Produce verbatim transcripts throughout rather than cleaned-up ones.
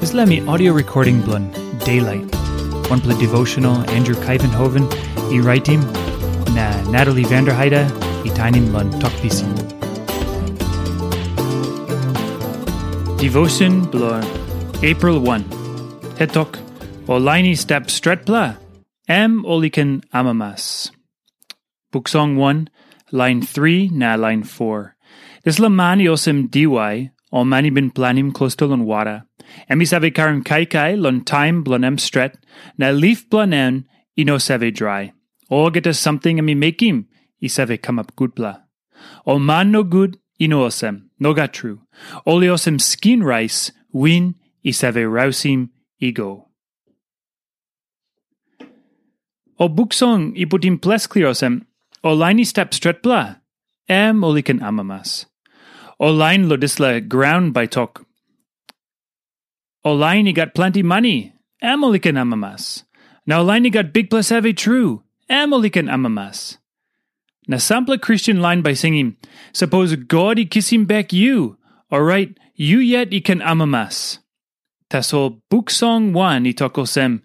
Dispela mi audio recording bilong Daylight. Wanpela devotional Andrew Kaivenhoven i raitim, na Natalie Vanderheide i tainim long Tok Pisin. Devotion bilong April one. Hetok, o lain i stap stretpela, em ol i ken amamas. Buk Song one, lain three na lain four. Dispela man i olsem diwai, o man i bin planim klostu long wara. Em i save karim kaikai long taim bilong em stret, na lif bilong en i no save drai. Olgeta samting em i mekim i save kamap gutpela. Ol man nogut i no olsem, nogat tru. Ol i olsem skin rais, win i save rausim i go. O buk song i putim ples klia olsem, o lain i stap stretpela, em ol i ken amamas. O lain lo dispela graun bai tok, o lain i gat planti mani, em ol i ken amamas. Na o lain i gat bikpela save tru, em ol i ken amamas. Na sampela Kristen lain bai singim, sapos God i kisim bek yu, orait yu yet i ken amamas. Tasol buk song wan i tok olsem,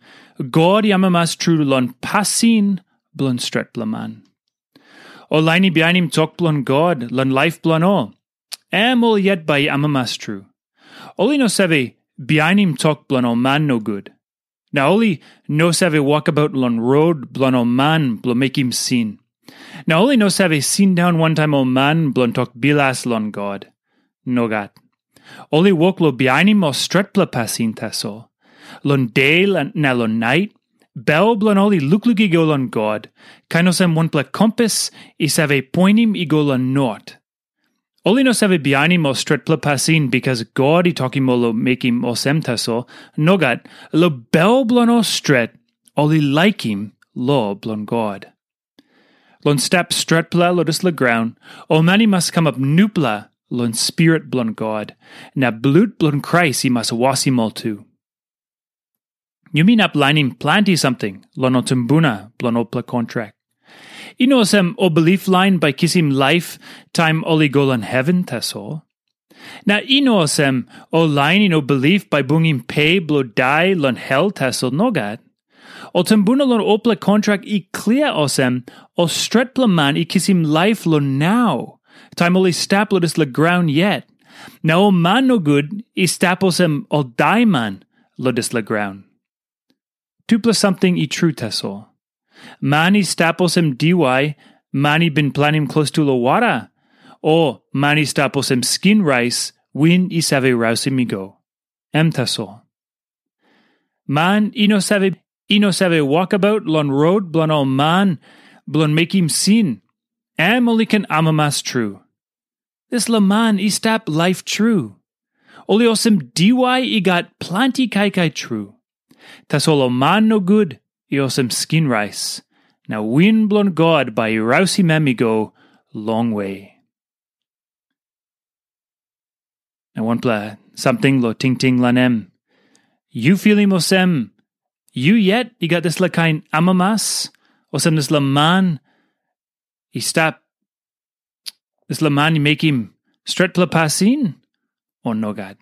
God i amamas tru long pasin bilong stretpela man. Ol lain i bihainim tok bilong God long laip bilong ol, em ol yet bai i amamas tru. Ol i no save bihainim tok bilong ol man nogut. Na ol i no save wokabaut long rot bilong ol man bilong mekim sin. Na ol i no save sindaun wantaim ol man bilong tok bilas long God. Nogat. Ol i wok long bihainim ol stretpela pasin tasol. Long de na long nait, bel bilong ol i lukluk i go long God, kain olsem wanpela kompas i save poinim i go long not. Ol i no save bihainim ol stretpela pasin bikas God i tokim ol long mekim olsem tasol. Nogat, long bel bilong ol stret, ol i laikim lo bilong God. Long stap stretpela long dispela graun, ol man i mas kamap nupela long Spirit bilong God, na blut bilong Krais i mas wasim ol tu. Yumi inap lainim planti samting long ol tumbuna bilong olpela kontrak. I no olsem ol bilip lain bai kisim laip taim ol i go long heven tasol. Na i no olsem ol lain i no bilip bai bungim pe bilong dai long hel tasol, nogat. Ol tumbuna long olpela kontrak i klia olsem, ol stretpela man i kisim laip long nau, taim ol i stap long dispela graun yet. Na ol man nogut i stap olsem ol daiman long dispela graun. Tupela samting i tru tasol. Man i stap olsem diwai, man i bin planim klostu long wara, o man i stap olsem skin rais, win i save rausim i go. Em tasol. Man i no save, i no save wokabaut long rot bilong ol man bilong mekim sin, em ol i ken amamas tru. Dispela man i stap laip tru. Ol i olsem diwai i gat planti kaikai tru. Tasol ol man nogut i olsem skin rais, na win bilong God bai i rausim em i go longwe. Na wanpela samting lo tingting long em. Yu filim olsem, yu yet i gat dispela kain amamas, olsem dispela man i stap, dispela man i mekim stretpela pasin, o nogat?